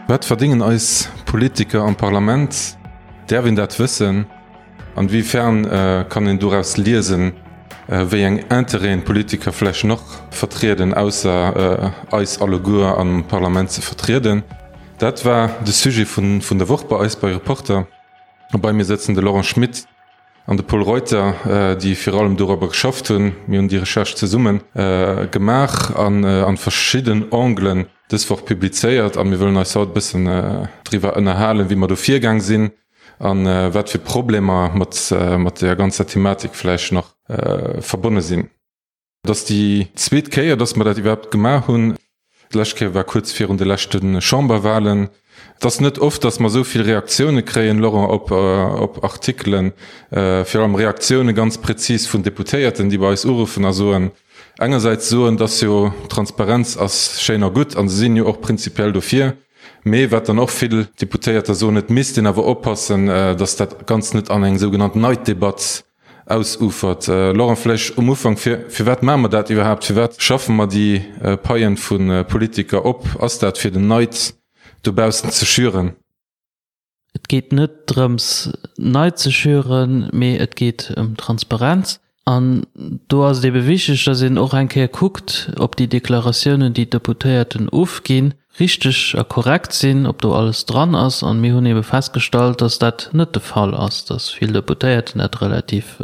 Wat verdéngen eis Politiker am Parlament? Däerf een dat wëssen? An wéi fern kann een doraus liesen, wéi eng Intérêten d'Politiker vläicht nach vertrieden, ausser eis alleguer am Parlament ze vertrieden? Dat war de Sujet vun der Woch bei eis bei Reporter. A bei mir sëtzen de Laurent Schmit an de Pol Reuter, déi virun allem dorobber geschafft hunn. Mir hunn déi Recherche zesumme gemaach an an verschidden Anglen dës Woch publizéiert. A mir wëllen eis haut e bëssen driwwer ënnerhalen, wéi mer do virgaang sinn a wat fir Problemer mat mat där ganzer Thematik vläicht nach verbonne sinn. Et ass déi zweet Kéier, dass mer dat iwwerhaapt gemaach hunn. D'lescht Kéier war kuerz virun de leschte Chamberwahlen. Et ass net oft, dass mer esou vill Reaktioune kréien, Laurent, op, op Artikelen, virun allem Reaktioune ganz prezis vun Deputéierten, déi bei eis uruffen a soen, engersäits soen, dass jo Transparenz ass schéin a gutt a se sinn jo och prinzipiell dofir, mee wat dann och vill Deputéierter soen, et misst een awer oppassen, dass dat Ganzt net an eng sougenannt Neiddebatt Ausufert. Laurent, vläicht um Ufank, fir, firwat maache mer dat iwwerhaapt? Firwat schaffe mer déi Paien vu Politiker op? Ass dat fir den Neid dobaussen ze schüren? Et geet net drëms Neid ze schüren, mee et geet ëm Transparenz. An do ass et ebe wichteg, datt een och eng Kéier kuckt, ob déi Deklaratiounen, déi d'Deputéierten ofginn, richteg a korrekt sinn, ob do alles dran ass. An mir hunn ebe festgestallt, dass dat net de Fall ass, dass vill Deputéierten dat relativ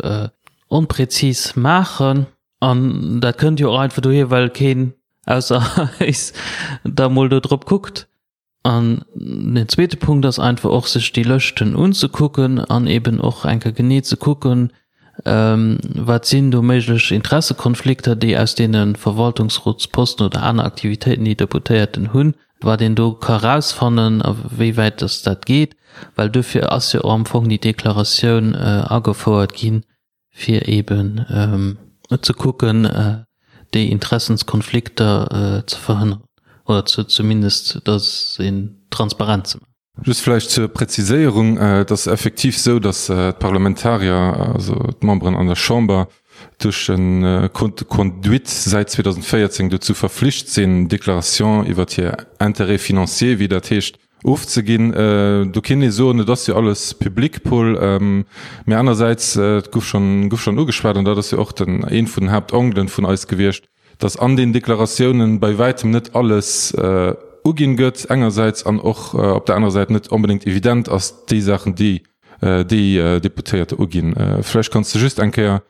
onprezis maachen. An dat kënnt jo och einfach dohier, well keen ausser eis da mol do drop kuckt. An den zweete Punkt ass einfach och, sech déi Lëschten unzekucken an eben och eng Kéier genee ze kucken, Wat sinn do méiglech Interessekonflikter, déi aus deene Verwaltungsrotsposten oder aner Aktivitéiten, déi Deputéierten hunn, wat een do ka erausfannen a wéi wäit dass dat geet? Well duerfir ass jo och am Fong déi Deklaratioun agefouert ginn, fir eeben ze kucken, déi Interessenskonflikter ze verhënneren oder zumindest, dass een transparent ze maachen. Just vläicht zur Präziséierung, Et ass effektiv esou, datt d'Parlamentarier, also d'Memberen an der Chamber, duerch e Code de conduite säit 2014 dozou verflicht sinn, Déclaration iwwert hir Intérêts financiers, wéi dat heescht, ofzeginn. Do kéint ee soen, et ass jo alles public, Paul. Mä anersäits, et gouf schonn, gouf schonn ugeschwat, an dat ass jo och den, ee vun den Haaptanglen vun eis gewiescht, dass an den Deklaratiounen bei wäitem net alles uginn gëtt engersäits an och op der anerer Säit net onbedéngt evident ass, déi Saachen, déi déi Deputéierte uginn. Vläicht kanns de just eng Kéier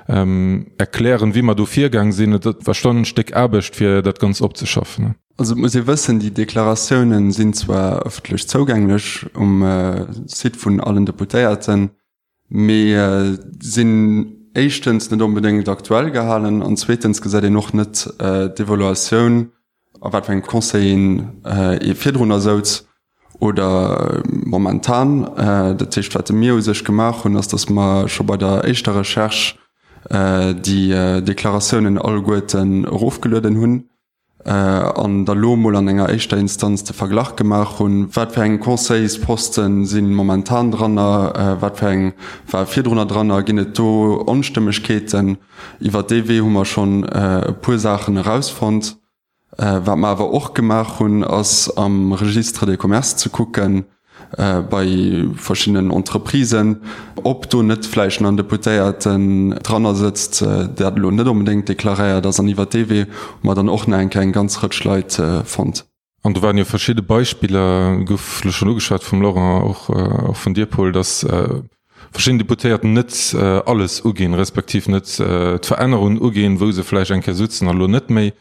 erklären, wéi mer do virgaang sinn. Et war schonn en Stéck Aarbecht, fir dat Ganzt opzeschaffen. Also et muss ee wëssen, déi Deklaratiounen sinn zwar ëffentlech zougänglech um Site vun allen Deputéierten, mee sinn éischtens net onbedéngt aktuell gehalen an zweetens gesäit een och net d'Evaluatioun, a wat fir engem Conseil een ee virdrunner souz oder momentan. Dat heescht, wat mir u sech gemaach hunn, ass, datt mer scho bei der éischter Recherche déi Deklaratiounen alleguerten erofgelueden hunn an da lo mol an enger éischter Instanz de Verglach gemaach hunn, wat fir eng Conseilsposten si momentan dranner, wat fir eng ware virdrunner dranner, ginn et do Onstëmmegkeeten. Iwwer dee Wee hu mer schonn e puer Saachen erausfonnt. Wat mer awer och gemaach hunn, ass am Registre de commerce ze kucken, bei verschiddenen Entreprisen, ob do net vläicht nach en Deputéierten dranner sëtzt, dat elo net onbedéngt deklaréiert ass. An iwwert dee Wee hu mer dann och nach eng Kéier eng ganz Rëtsch Leit fonnt. An do waren jo verschidde Beispiller, gouf elo schonn ugeschwat vum Laurent, och vun dir, Paul, dass verschidden Deputéierten net alles uginn, respektiv net d'Verännerungen uginn, wou se vläicht eng Kéier sutzen a lo net méi.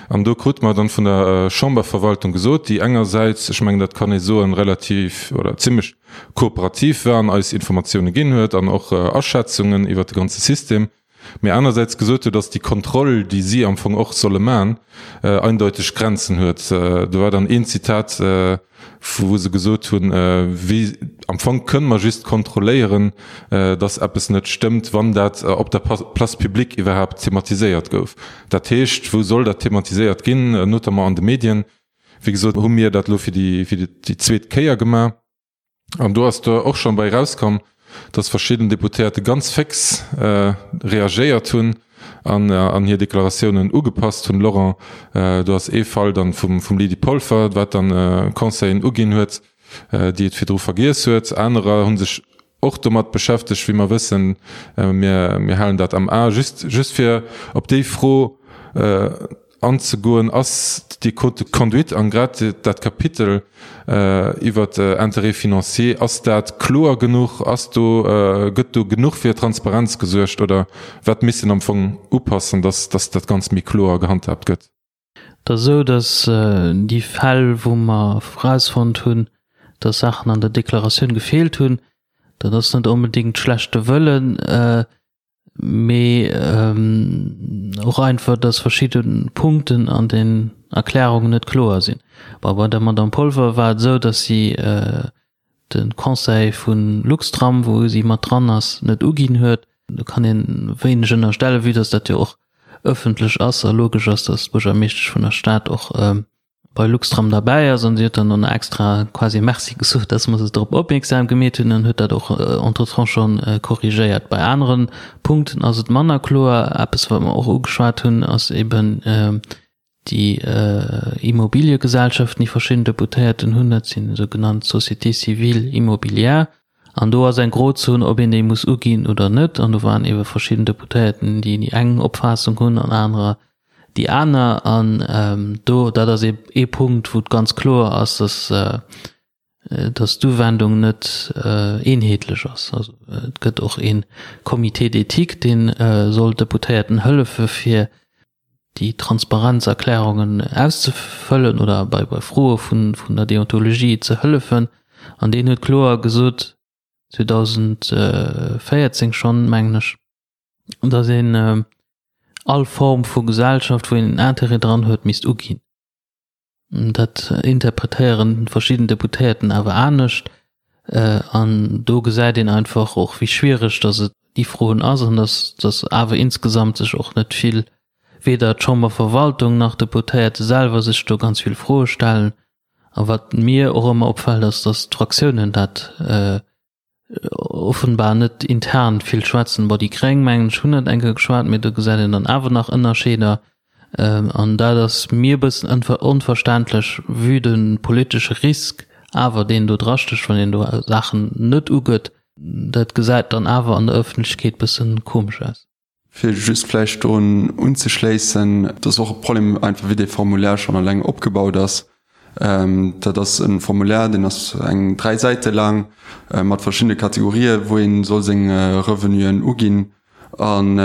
An do krute mer dann vun der Chamberverwaltung gesot, déi engersäits, ech mengen dat kann ee soen, relativ oder zimlech kooperativ war an eis Informatioune ginn huet an och Aschätzungen iwwert de ganze System, mee anersäits gesot huet, dass déi Kontroll, déi si am Fong och solle man, eindeuteg Grenzen huet. Do war dann een Zitat, wou se gesot hunn, wéi am Fong kënne mer just kontrolléieren, dass eppes net stëmmt, wann dat op der Place publique iwwerhaapt thematiséiert gouf. Dat heescht, wou soll dat thematiséiert ginn? Notamment an de Medien. Wéi gesot hu mir dat elo fir déi zweet Kéier gemaach. An do ass do och schonn bei erauskomm, dass verschidden Deputéierte ganz féx reagéiert hunn. an an hir Deklaratiounen ugepasst hunn. Laurent, do ass ee Fall dann vum vum Lydie Polfer, wat dann Conseillen uginn huet, déi et virdru vergiess huet. Anerer hu sech och domat beschäftegt, wéi mer wëssen. Mir mir halen dat am A. Just just fir op déi Fro anzegoen, ass déi Code de conduite an grad dat Kapitel iwwert Intérêts financiers, ass dat kloer genuch? Ass do, gëtt do genuch fir Transparenz gesuergt oder wat misst een am Fong upassen, dass dass dat Ganzt méi kloer gehandhaabt gëtt? Et ass esou, dass déi Fäll, wou mer erausfonnt hunn, dass Saachen an der Deklaratioun gefeelt hunn, dat ass net onbedéngt schlechte Wëllen, mee och einfach, dass verschidde Punkten an den Erklärungen net kloer sinn. Bon, bei der Madame Polfer war et esou, dass si de Conseil vu Luxtram, wou si mat dran ass, net uginn huet. Do kann ee wéineg ënnerstellen, vue dass dat jo och ëffentlech ass a logesch ass, dass d'Buergermeeschtesch vun der Stad och bei Luxtram derbäi ass. An si huet dann och nach extra quasi Merci gesot, dass mer se drop opmierksam gemeet hunn an huet dat och entretemps scho korrigéiert. Bei anere Punkten ass et manner kloer. Eppes, wat mer och ugeschwat hunn, ass eben déi Immobiliegesellschaften, déi verschidden Deputéierten hunn. Dat sinn esou genannt Sociétés civiles immobilières. An do ass eng Grozon, ob een déi muss uginn oder net. An do waren eebe verschidden Deputéierten, déi déi eng Opfaassung hunn an anerer déi aner. An do, dat ass ee Punkt, wou et ganz kloer ass, dass, dass d'Uwendung net eenheetlech ass. Also et gëtt och ee Comité d'éthique, dee soll Deputéierten hëllefe fir déi Transparenzerklärungen auszefëllen oder bei bei Froe vun vun der Deontologie ze hëllefen. An deen huet kloer gesot, 2014 schonn, mengen ech, datt een all Form vu Gesellschaft, wou een en Intérêt dran huet, misst uginn. Dat interpretéieren verschidden Deputéierten awer anescht. An do gesäit een einfach och, wéi schwiereg datt et déi Froen ass an datt datt awer insgesamt sech och net vill, weder d'Chamberverwaltung nach d'Deputéierte selwer sech do ganz vill Froe stellen. A wat mir och ëmmer opfält, ass, datt d'Fraktiounen dat offenbar net intern vill schwätzen. Bon, déi Gréng, mengen ech, hunn dat eng Kéier geschwat, mee do gesäit een dann awer nach Ënnerscheeder. An dat ass mir e bëssen onverständlech, vue de politesche Risk awer, deen do drastécht, wann een do Saachen net ugëtt. Dat gesäit dann awer an der Ëffentlechkeet bësse komesch aus. Fir just vläicht drun unzeschléissen, et ass och e Problem einfach, wéi dee Formulaire schonn eleng opgebaut ass. Dat ass e Formulaire, deen ass eng 3 Säite laang mat verschiddene Kategorien, wou ee soll seng Revenuen uginn. An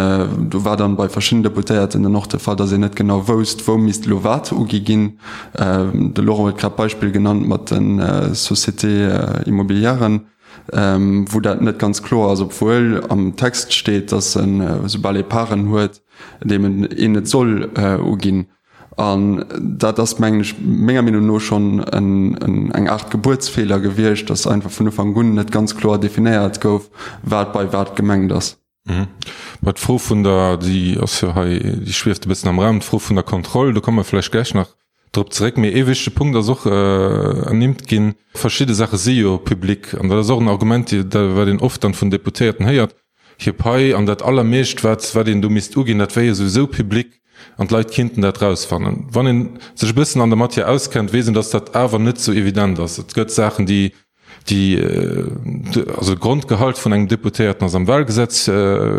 do war dann bei verschiddenen Deputéierten dann och de Fall, datt een net genau wousst, wou misst elo wat ugi ginn. De Laurent huet grad d'Beispill genannt mat de Sociétés immobilièren. wou dat net ganz kloer ass, obwuel am Text steet, datt en, soubal ee Paren huet, deem een et soll uginn. An dat ass, mengen ech, menger Meenung no schonn eng Aart Gebuertsfeeler gewiescht, datt einfach vun Ufank un net ganz kloer definéiert gouf, wat bei wat gemengt ass. Mä d'Fro vun der, déi ass jo hei, déi schwieft e bëssen am Raum, d'Fro vun der Kontroll, do komme mer vläicht gläich nach drop zeréck. Mee ee wichtege Punkt ass och ernimmt ginn, Verschidde Saache si jo public an dat ass och en Argument, wat een oft dann vun Deputéierten héiert, hir Pai an dat Allermeescht, wat wat een do misst uginn, dat wär jo souwisou public an d'Leit kinnten dat rausfannen. Wann ee sech e bëssen an der Matière auskennt, weess een, datt dat awer net sou evident ass. Et gëtt Saachen, déi Déi, also de Grondgehalt vun engem Deputéierten ass am Wahlgesetz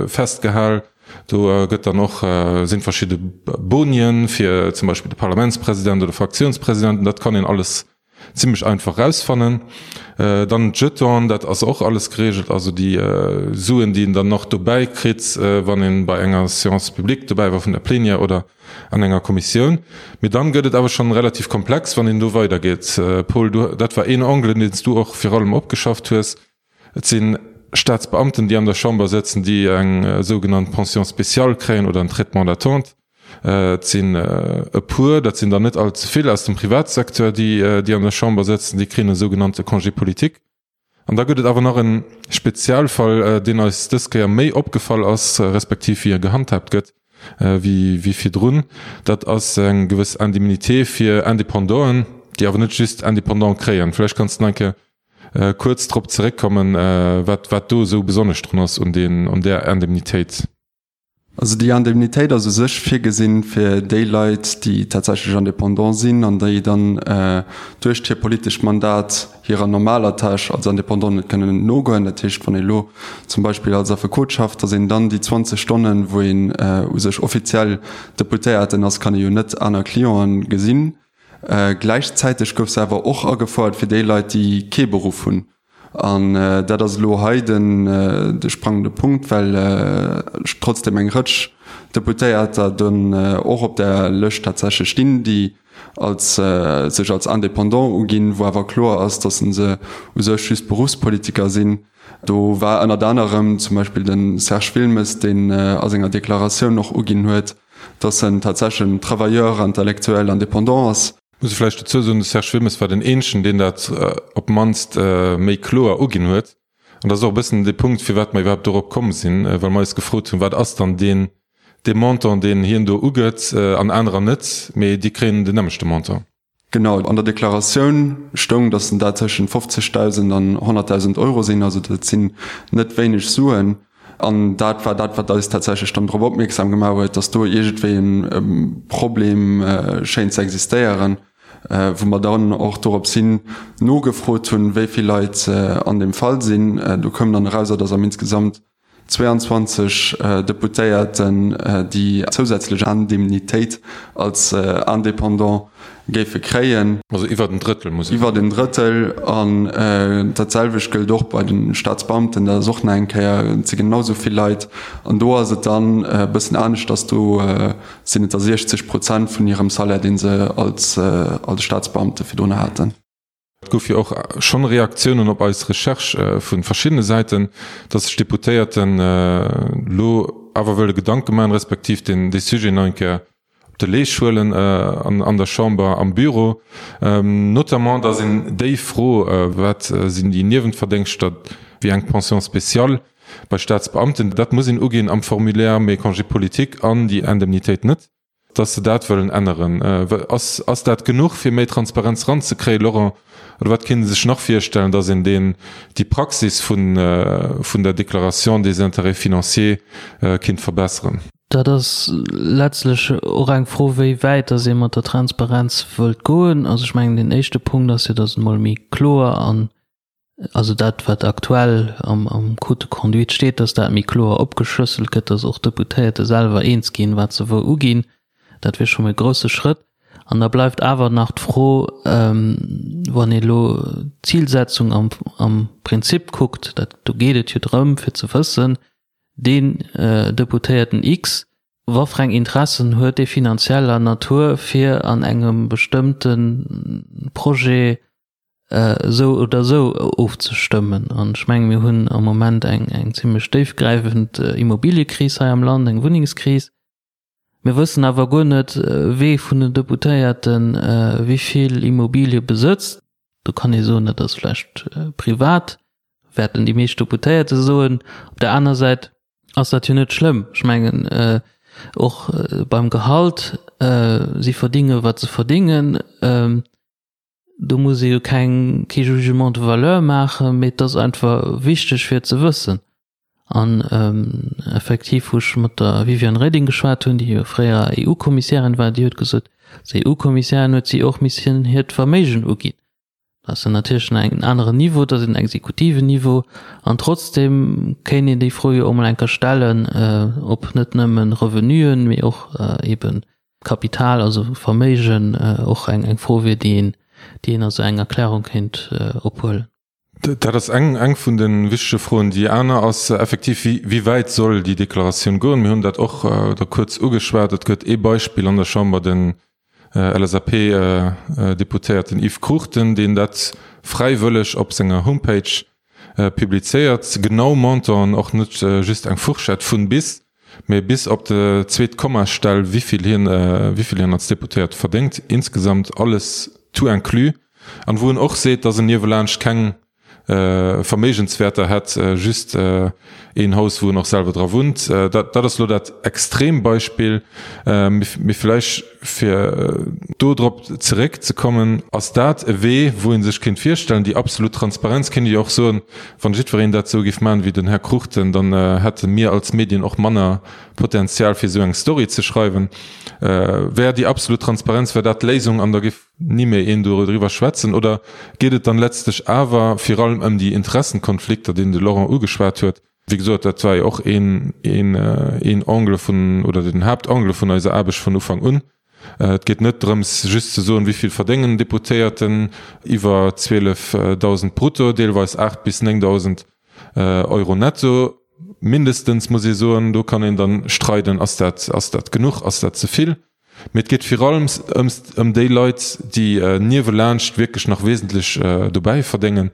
festgehal. Do gëtt dann och, sinn verschidde Bonien fir zum Beispill de Parlamentspresident oder Fraktiounspresidenten. Dat kann een alles zimlech einfach rausfannen. Dann d'Jetonen, dat ass och alles geregelt, also déi Suen, déi een dann nach dobäi kritt, wann een bei enger Séance publique dobäi war vun der Plénière oder an enger Kommissioun. Mee dann gëtt et awer schonn relativ komplex, wann een do weidergeet. Paul, du, dat war een Angle, deen s du och vir allem opgeschafft hues. Et si Staatsbeamten, déi an der Chamber sëtzen, déi eng sougenannt Pension spéciale kréien oder en Traitement d'attente. Et sinn e puer, dat sinn der net all ze vill, aus dem Privatsecteur, déi, déi an der Chamber sëtzen, déi kréien e sougenannte Congé politique. An da gëtt et awer nach e Spezialfall, deen eis dës Kéier méi opgefall ass, respektiv wéi e gehandhaabt gëtt, wéi virdrun. Dat ass eng gewëss Indemnité fir Independanten, déi awer net just Independant kréien. Vläicht kanns de nach eng Kéier kuerz drop zeréckkommen, wat do esou besonnesch drun ass un där Indemnitéit. Also déi Indemnitéit ass u sech virgesinn fir déi Leit, déi tatsächlech Indépendant sinn an déi dann duerch hiert politescht Mandat hirer normaler Tâche als Indépendant net kënnen nogoen. Dat heescht, wann ee lo zum Beispill als Affekot schafft, datt een dann déi 20 Stonnen, wou een u sech offiziell Deputéierten ass, kann ee jo net aner Clienten gesinn. Gläichzäiteg gouf se awer och agefouert fir déi Leit, déi kee Beruff hunn. An dat ass elo hei de sprangende Punkt, well trotzdem eng Rëtsch Deputéierter dunn och op där Lëscht tatsächlech stinn, déi als sech als Indépendant uginn, wou awer kloer ass, datt se u sech just Beruffspolitiker sinn. Do war ënnert anerem zum Beispill de Serge Wilmes, deen a senger Deklaratioun och uginn huet, datt en tatsächlech en Travailleur intellectuel indépendant ass. Muss ee vläicht dozou soen, de Serge Wilmes war den eenzegen, deen dat op d'mannst méi kloer uginn huet. An dat ass och e bëssen de Punkt, firwat mer iwwerhaapt dorop komm sinn, well mer eis gefrot hunn, wat ass dann deen, dee Montant, deen hien do ugëtt an anerer net, mee déi kréien den nämmlechte Montant. Genau, an der Deklaratioun stoung, datt en dat tëschent 50.000 an 100.000 Euro sinn. Also dat sinn net wéineg Suen. An dat war dat, wat eis tatsächlech dann drop opmierksam gemaach huet, datt do iergendwéi e Problem schéint ze existéieren, wou mer dann och dorops hin nogefrot hunn, wéi vill Leit an deem Fall sinn. Do koum dann erauser, datt am insgesamt 22 Deputéierten déi zousätzlech Indemnitéit als Indépendant géife kréien. Also iwwert en Drëttel muss. Iwwert en Drëttel. An dat selwecht gëllt och bei de Staatsbeamten, dat ass och nach eng Kéier, et si genau esou vill Leit. An do ass et dann e bëssen aneschters, do sinn et da 60 Prozent vun hirem Salaire, dee se als Staatsbeamte virdrun haten. Et gouf jo och schonn Reaktiounen op eis Recherche vu verschiddene Säiten, datt sech d'Deputéierten elo awer wëlle Gedanke maachen, respektiv deen dee Sujet nach eng Kéier op de Leesch huelen an der Chamber am Büro. Notamment, datt een déi Fro, wat sinn déi Niewentverdéngschter, wéi eng Pension spéciale bei Staatsbeamten, dat muss een uginn am Formulaire, mee Congé politique an déi Indemnitéit net. dass se dat wëllen änneren. Ass, ass dat genuch, fir méi Transparenz eranzekréien, Laurent? Oder wat kéint ee sech nach virstellen, dass een deen, déi Praxis vun, vun der Déclaration des intérêts financiers kéint verbesseren? Dat ass letztlech och eng Fro, wéi wäit dass ee mat der Transparenz wëllt goen. Also ech mengen, deen éischte Punkt ass jo, dass et emol méi kloer an also dat wat aktuell am, am Code de conduite steet, dass dat méi kloer opgeschlësselt gëtt, dass och d'Deputéierte selwer eens ginn, wat se wou uginn. Dat wier scho mol e grouse Schrëtt. An da bleift awer nach d'Fro, wann ee elo d'Zilsetzung am, am Prinzip kuckt, dat, do geet et jo drëm fir ze wëssen, deen Deputéierten X, wat fir eng Interessen huet dee finanzieller Natur, fir an engem bestëmmte Projet esou oder esou ofzestëmmen. An ech menge mir hunn am Moment eng, eng zimlech déifgräifend Immobiliëkris hei am Land, eng Wunnengskris. Mir wëssen awer guer net, wee vun den Deputéierte wéi vill Immobilie besëtzt. Do kann ee soen, dat ass vläicht privat, wäerten déi meescht Deputéierte soen. Op der aner Säit ass dat jo net schlëmm. Ech mengen och beim Gehalt, si verdinge wat se verdingen. Do muss ee jo keng, kee Jugement de valeur maachen, mee et ass einfach wichteg fir et ze wëssen. An effektiv, wou ech mat der Viviane Reding geschwat hunn, déi jo fréier EU-Kommissärin war, déi huet gesot, als EU-Kommissärin huet si och missen hiert Verméigen uginn. Dat ass dann natierlech nach en aneren Niveau, dat ass en exekutiven Niveau. An trotzdeem kéint een déi Fro jo och mol eng Kéier stellen, ob net nëmme Revenuen, mee och eeben Kapital, also Verméigen, och eng Fro wier, déi een, déi een a sou eng Erklärung kéint ophuelen. Dat ass eng, eng vun de wichtege Froen. Déi aner ass effektiv, wéi, wéi wäit soll déi Deklaratioun goen? Mir hunn dat och da kuerz ugeschwat. Et gëtt ee Beispill an der Chamber, den LSAP-Deputéierten Yves Cruchten, deen dat fräiwëlleg op senger Homepage publizéiert, genau Montanten, och net just eng Fourchette vun bis, mee bis op de zweet Kommastell, wéivill hien, wéivill hien als Deputéierte verdéngt, insgesamt alles tout inclus, an wou en och seet, dass en niewelaanscht keng. Verméigenswäerter hätt, just een Haus, wou en och selwer dra wunnt. Dat ass elo dat Extrembeispill. Mee vläicht, fir do drop zeréckzekommen, ass dat e Wee, wou ee sech kéint virstellen, déi absolut Transparenz, kéint ee jo och soen, wann jiddwereen dat esou géif maachen wéi den Här Cruchten, dann hätte mir als Medien och manner Potenzial, fir esou eng Story ze schreiwen. Wär déi absolut Transparenz, wär dat d'Léisung an da géif ni méi een doriwwer schwätzen? Oder geet et dann letztlech awer vir allem ëm déi Interessenkonflikter, deen de Laurent ugeschwat huet? Wéi gesot, dat war jo och een, een, een Angle vun, oder den Haaptangle vun eiser Aarbecht vun Ufank un. Et geet net drëms, just ze soen, wéi vill verdéngen Deputéierten, iwwer 12.000 brutto, deelweis 8 bis 9.000 Euro netto mindestens, muss ee soen. Do kann een dann streiden, ass dat, ass dat genuch, ass dat ze vill? Mee et geet vir allem ëm déi Leit, déi niewelaanscht wierklech nach wesentlech dobäi verdéngen.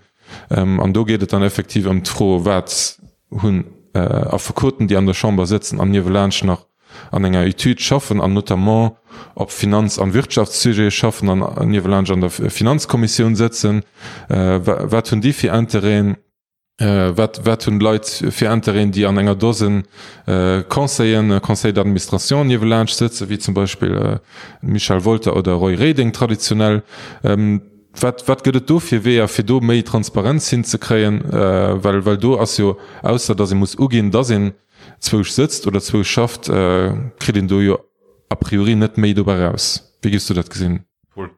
An do geet et dann effektiv ëm d'Fro, Wat hunn Affekoten, déi an der Chamber sëtzen an niewelaanscht nach an enger Etüd schaffen an notamment op Finanz an Wirtschaftssujete schaffen an niewelaanscht an der Finanzkommissioun sëtzen, wat hunn déi fir Intérêten? Wat, wat hunn d'Leit fir Intérêten, déi an enger Dosen Conseillen, Conseils d'administration niewelaanscht sëtzen, wéi zum Beispill Michel Wolter oder Roy Reding traditionell? Wat, wat gëtt et do fir Weeër, fir do méi Transparenz hinzekréien? Well, well do ass jo, ausser datt ee muss uginn, datt een zwousch sëtzt oder zwousch schafft, kritt een do jo a priori net méi dobäi raus. Wéi géifs du dat gesinn, Paul?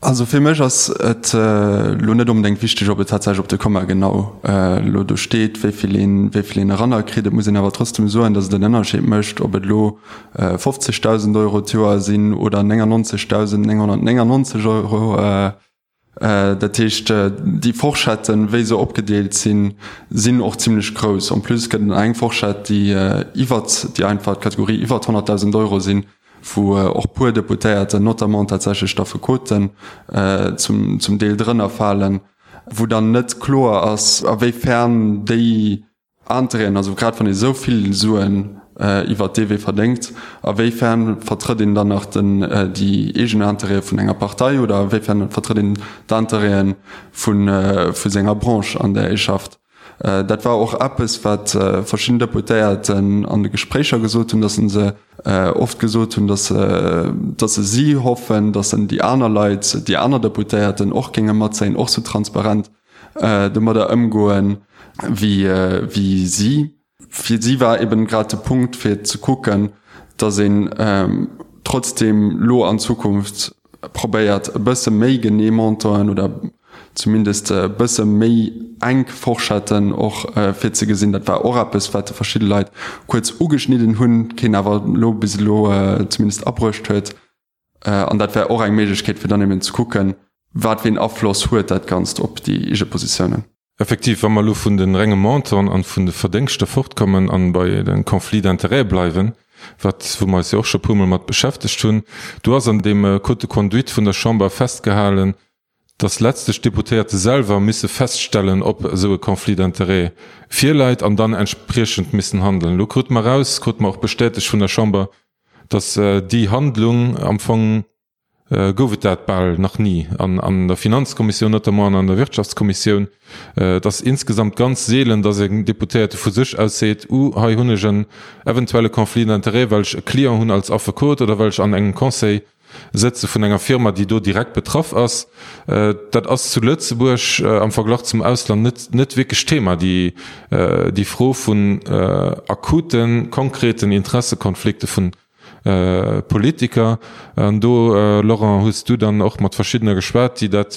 Also fir mech ass et elo net onbedéngt wichteg, ob et tatsächlech op de Komma genau elo do steet, wéi vill een, wéi vill een eranner kritt. Et muss een awer trotzdem soen, datt et en Ënnerscheed mécht, ob et elo 50.000 Euro d'Joer sinn oder 99.999 Euro. Dat heescht, déi Forschetten, wéi se opgedeelt sinn, sinn och zimlech grouss. En plus gëtt et nach eng Forschett, déi iwwert déi einfach d'Kategorie iwwert 100.000 Euro sinn, wou och puer Deputéierten, notamment tatsächlech d'Affekoten, zum, zum Deel drënner falen, wou dann net kloer ass, a wéi fern déi Intérêten, also grad wann ee sou vill Suen iwwert dee Wee verdéngt, a wéi fern vertrëtt een dann nach den, déi eegen Intérêtë vun enger Partei oder a wéi fern vertrëtt een d'Intérêtë vu, vu senger Branche, an där ee schafft. Dat war och eppes, wat verschidden Deputéierten an de Gespréicher gesot hunn, datt se oft gesot hunn, datt datt se si hoffen, datt en déi aner Leit, déi aner Deputéierten och géinge matzéien, och sou transparent domadder ëmgoen, wéi wéi si. Fir si war eben grad de Punkt fir ze kucken, datt een trotzdem lo an Zukunft probéiert e bësse méi genee Montanten oder zumindest e bësse méi enk Forschetten och virzegesinn. Dat war och eppes, wat verschidde Leit kuerz ugeschnidden hunn, keen awer elo bis elo zumindest abruecht huet. An dat wär och eng Méiglechkeet, fir dann eben ze kucken, wat fir een Afloss huet dat Ganzt op déi eege Positiounen. Effektiv, wa mer elo vun de renge Montanten an vun de Verdéngschter fortkommen an bei de Conflits d'intérêts bleiwen, wat, wou mer eis jo och scho puermol mat beschäftegt hunn, do ass an deem Code de conduite vun der Chamber festgehalen, dass letztlech d'Deputéierte selwer misse feststellen, ob esou e Conflit d'intérêts virläit an dann entspriechend missen handeln. Elo krute mer eraus, krute mer och bestätegt vun der Chamber, dass déi Handlung am Fong, gouf et dat bal nach ni an der Finanzkommissioun notamment an an der Wirtschaftskommissioun. Et ass insgesamt ganz seelen, dass en Deputéierte vu sech aus seet, Uh, hei hunn ech en eventuelle Conflit d'intérêts, well ech e Client hunn als Affekot oder well ech an engem Conseil sëtze vun enger Firma, déi do direkt betraff ass. Dat ass zu Lëtzebuerg am Verglach zum Ausland net net wierklech Thema, déi déi Fro vun akuten, konkreten Interessekonflikte vun Politiker. An do, Laurent, hues du dann och mat verschiddener geschwat, déi dat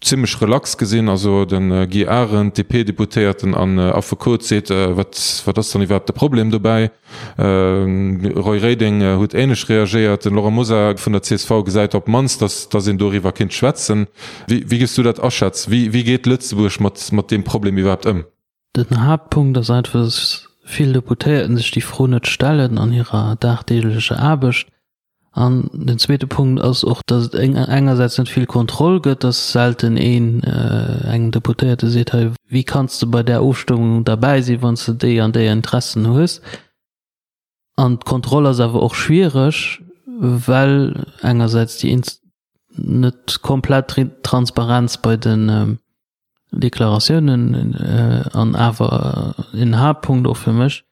zimmlech relax gesinn. Also de Guy Arendt, DP-Deputéierten an Affekot, seet, wat wat ass dann iwwerhaapt de Problem dobäi? Roy Reding huet änlech reagéiert. Den Laurent Mosar vun der csv gesäit op d'mannst, datt datt een doriwwer kéint schwätzen. Wéi wéi géifs du dat aschätzen? Wéi wéi geet Lëtzebuerg mat mat deem Problem iwwerhaapt ëm? Den Haaptpunkt ass einfach, dass vill Deputéierten sech déi Fro net stellen an hirer dagdeeglecher Aarbecht. An den zweete Punkt ass och, dass et engersäits net vill Kontroll gëtt, dass selten een engem Deputéierte seet, hei, wéi kanns de bei där Ofstëmmung derbäi sinn, wann s de déi an déi Interessen hues. An d'Kontroll ass awer och schwiereg, well engersäits déi net komplett Transparenz bei de. Deklaratiounen an awer en Haaptpunkt och fir mech,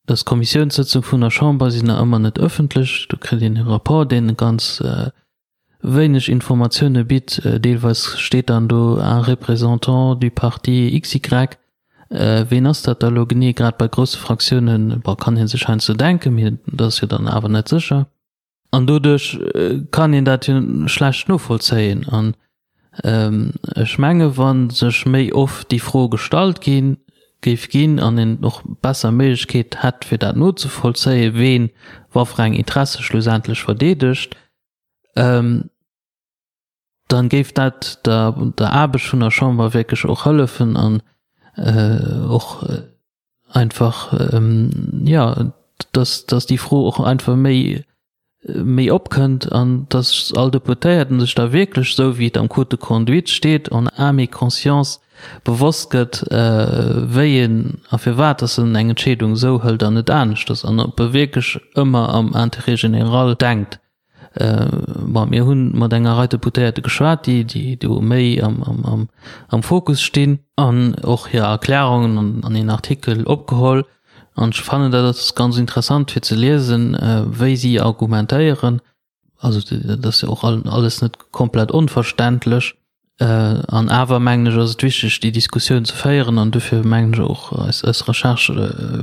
dass d'Kommissiounssëtzung vun der Chamber sinn nach ëmmer net ëffentlech. Do kritt een e Rapport, deen ganz wéineg Informatioune bitt. Deelweis steet dann do un représentant du parti XY. Ween ass dat da elo genee? Grad bei grousse Fraktiounen, bon, kann ee sech heiansdo denken, mee dat ass jo dann awer net sécher. An doduerch kann een dat jo schlecht novollzéien. An ech menge wa sech méi oft déi Fro gestallt gi géif ginn an een och besser Méiglechkeet hätt fir dat nozevollzéien, ween waffer eng Interesse schlussendlech verdeedegt, dann géif dat der der Aarbecht vun der Chamber wierklech och hëllefen an och einfach jo, dass dass déi Fro och einfach méi méi opkënnt an dass all Deputéierten sech da wierklech, esou wéi et am Code de conduite steet, en âme et conscience bewosst gëtt, wéi en a firwat dass en eng Entscheedung esou hëlt an net aneschters an ob e wierklech ëmmer am Intérêt général denkt. Bon, mir hu mat enger Rei Deputéierte geschwat, déi, déi do méi am, am, am, am Fokus stinn an och hir Erklärungen an, an een Artikel opgeholl. An ech fannen, dat ass ganz interessant fir ze liesen, wéi si argumentéieren. Also dat ass jo och alles net komplett onverständlech. An awer mengen ech, ass et wichteg, déi Diskussioun ze féieren an dofir mengen ech och, eis, eis Recherche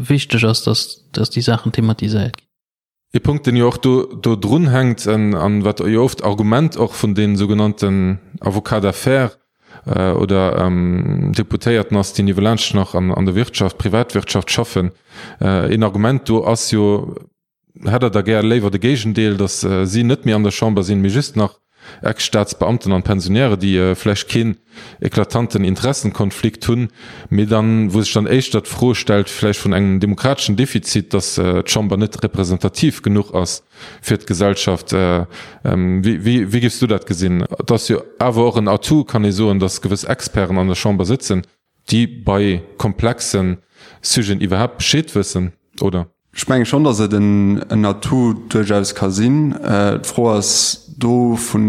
wichteg ass, dass, dass déi Saachen thematiséiert ginn. Ee Punkt, deen jo och do do drun hänkt an wat jo oft Argument och vun deene sougenannten Avocats d'affaires oder Deputéierten ass, déi niewelaanscht nach an der Wirtschaft, Privatwirtschaft schaffen, een Argument do ass jo, Hätt Der da gär léiwer de Géigendeel, datt si net méi an der Chamber sinn, mee just nach Ex-Staatsbeamten an Pensionäre, déi vläicht keen eklatanten Interessenkonflikt hunn, mee dann, wou sech dann éischter d'Fro stellt vläicht vun engem demokrateschen Defizit, datt d'Chamber net representativ genuch ass fir d'Gesellschaft. Wéi, wéi géifs du dat gesinn? Et ass jo awer och en Atout, kann ee soen, datt gewëss Experten an der Chamber sëtzen, déi bei komplexe Sujeten iwwerhaapt Bescheed wëssen, oder? Ech menge schonn, datt et en Atout duerchaus ka sinn. D'Fro ass do, vu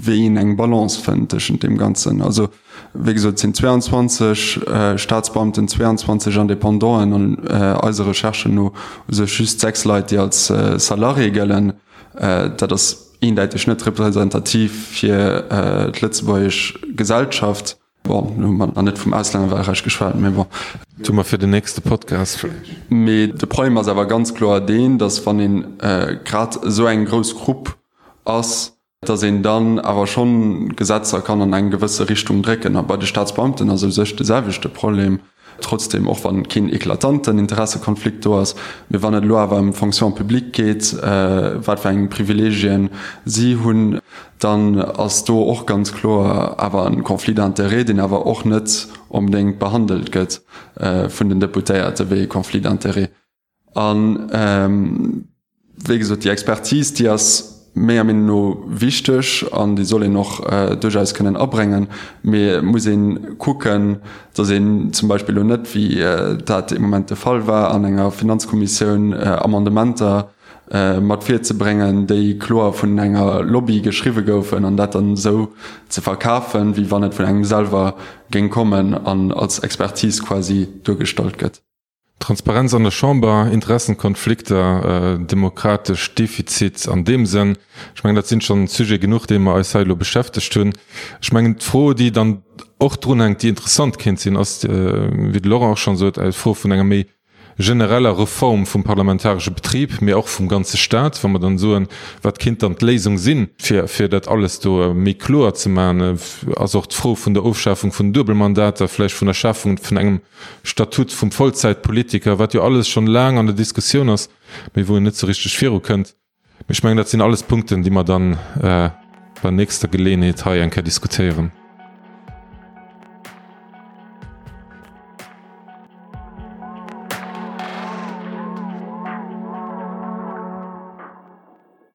wéi een eng Balance fënnt tëschent deem Ganzen. Also, wéi gesot, et sinn 22 Staatsbeamten, 22 Independanten an eise Recherchen no u sech just 6 Leit, déi als Salarié gëllen. Dat ass eendäiteg net representativ fir d'lëtzebuergesch Gesellschaft. Bon, lo hu mer nach net vum Auslännerwahlrecht geschwat, mee bon. Dat hu mer fir den nächste Podcast vläicht. Mee de Problem ass awer ganz kloer deen, datt wann ee grad esou eng grouss Grupp ass, datt een dann awer schonn Gesetzer kann an eng gewësse Richtung drécken. A bei de Staatsbeamten ass u sech de selwechte Problem. Trotzdem, och wann keen eklatanten Interessekonflikt do ass, mee wann et elo awer ëm d'Fonction publique geet, wat fir eng Privilegien si hunn, dann ass do och ganz kloer awer e Conflit d'intérêts, deen awer och net onbedéngt behandelt gëtt vun den Deputéierte wéi e Conflit d'intérêts. An wéi gesot, déi Expertise, déi ass menger Meenung no wichteg an déi soll een och duerchaus kënnen abréngen. Mee et muss ee kucken, datt een zum Beispill elo net, wéi dat ee Moment de Fall war, an enger Finanzkommissioun Amendementer mat virzebréngen, déi kloer vun enger Lobby geschriwwe goufen an dat dann esou ze verkafen, wéi wann et vun engem selwer géing kommen an als Expertise quasi duergestallt gëtt. Transparenz an der Chamber, Interessenkonflikter, demokratesch Defizit an deem Sënn, ech mengen, dat sinn schonn Sujete genuch, déi mer eis hei elo beschäftegt hunn. Ech mengen, d'Fro, déi dann och drunhänkt, déi interessant kéint sinn, ass, wéi de Laurent och schonn sot, d'Fro vun enger méi genereller Reform vum parlamentaresche Betrib, mee och vum ganze Stat, wa mer dann soen, wat kéint dann d'Léisung sinn, fir fir dat alles do méi kloer ze maachen, ass och d'Fro vun der Ofschafung vun den Duebelmandater, vläicht vun der Schafung vun engem Statut vum Vollzäitpolitiker, wat jo alles schonn laang an der Diskussioun ass, mee wou een net sou richteg virukënnt. Mee ech mengen, dat sinn alles Punkten, déi mer dann bei nächster Geleeënheet hei eng Kéier diskutéieren.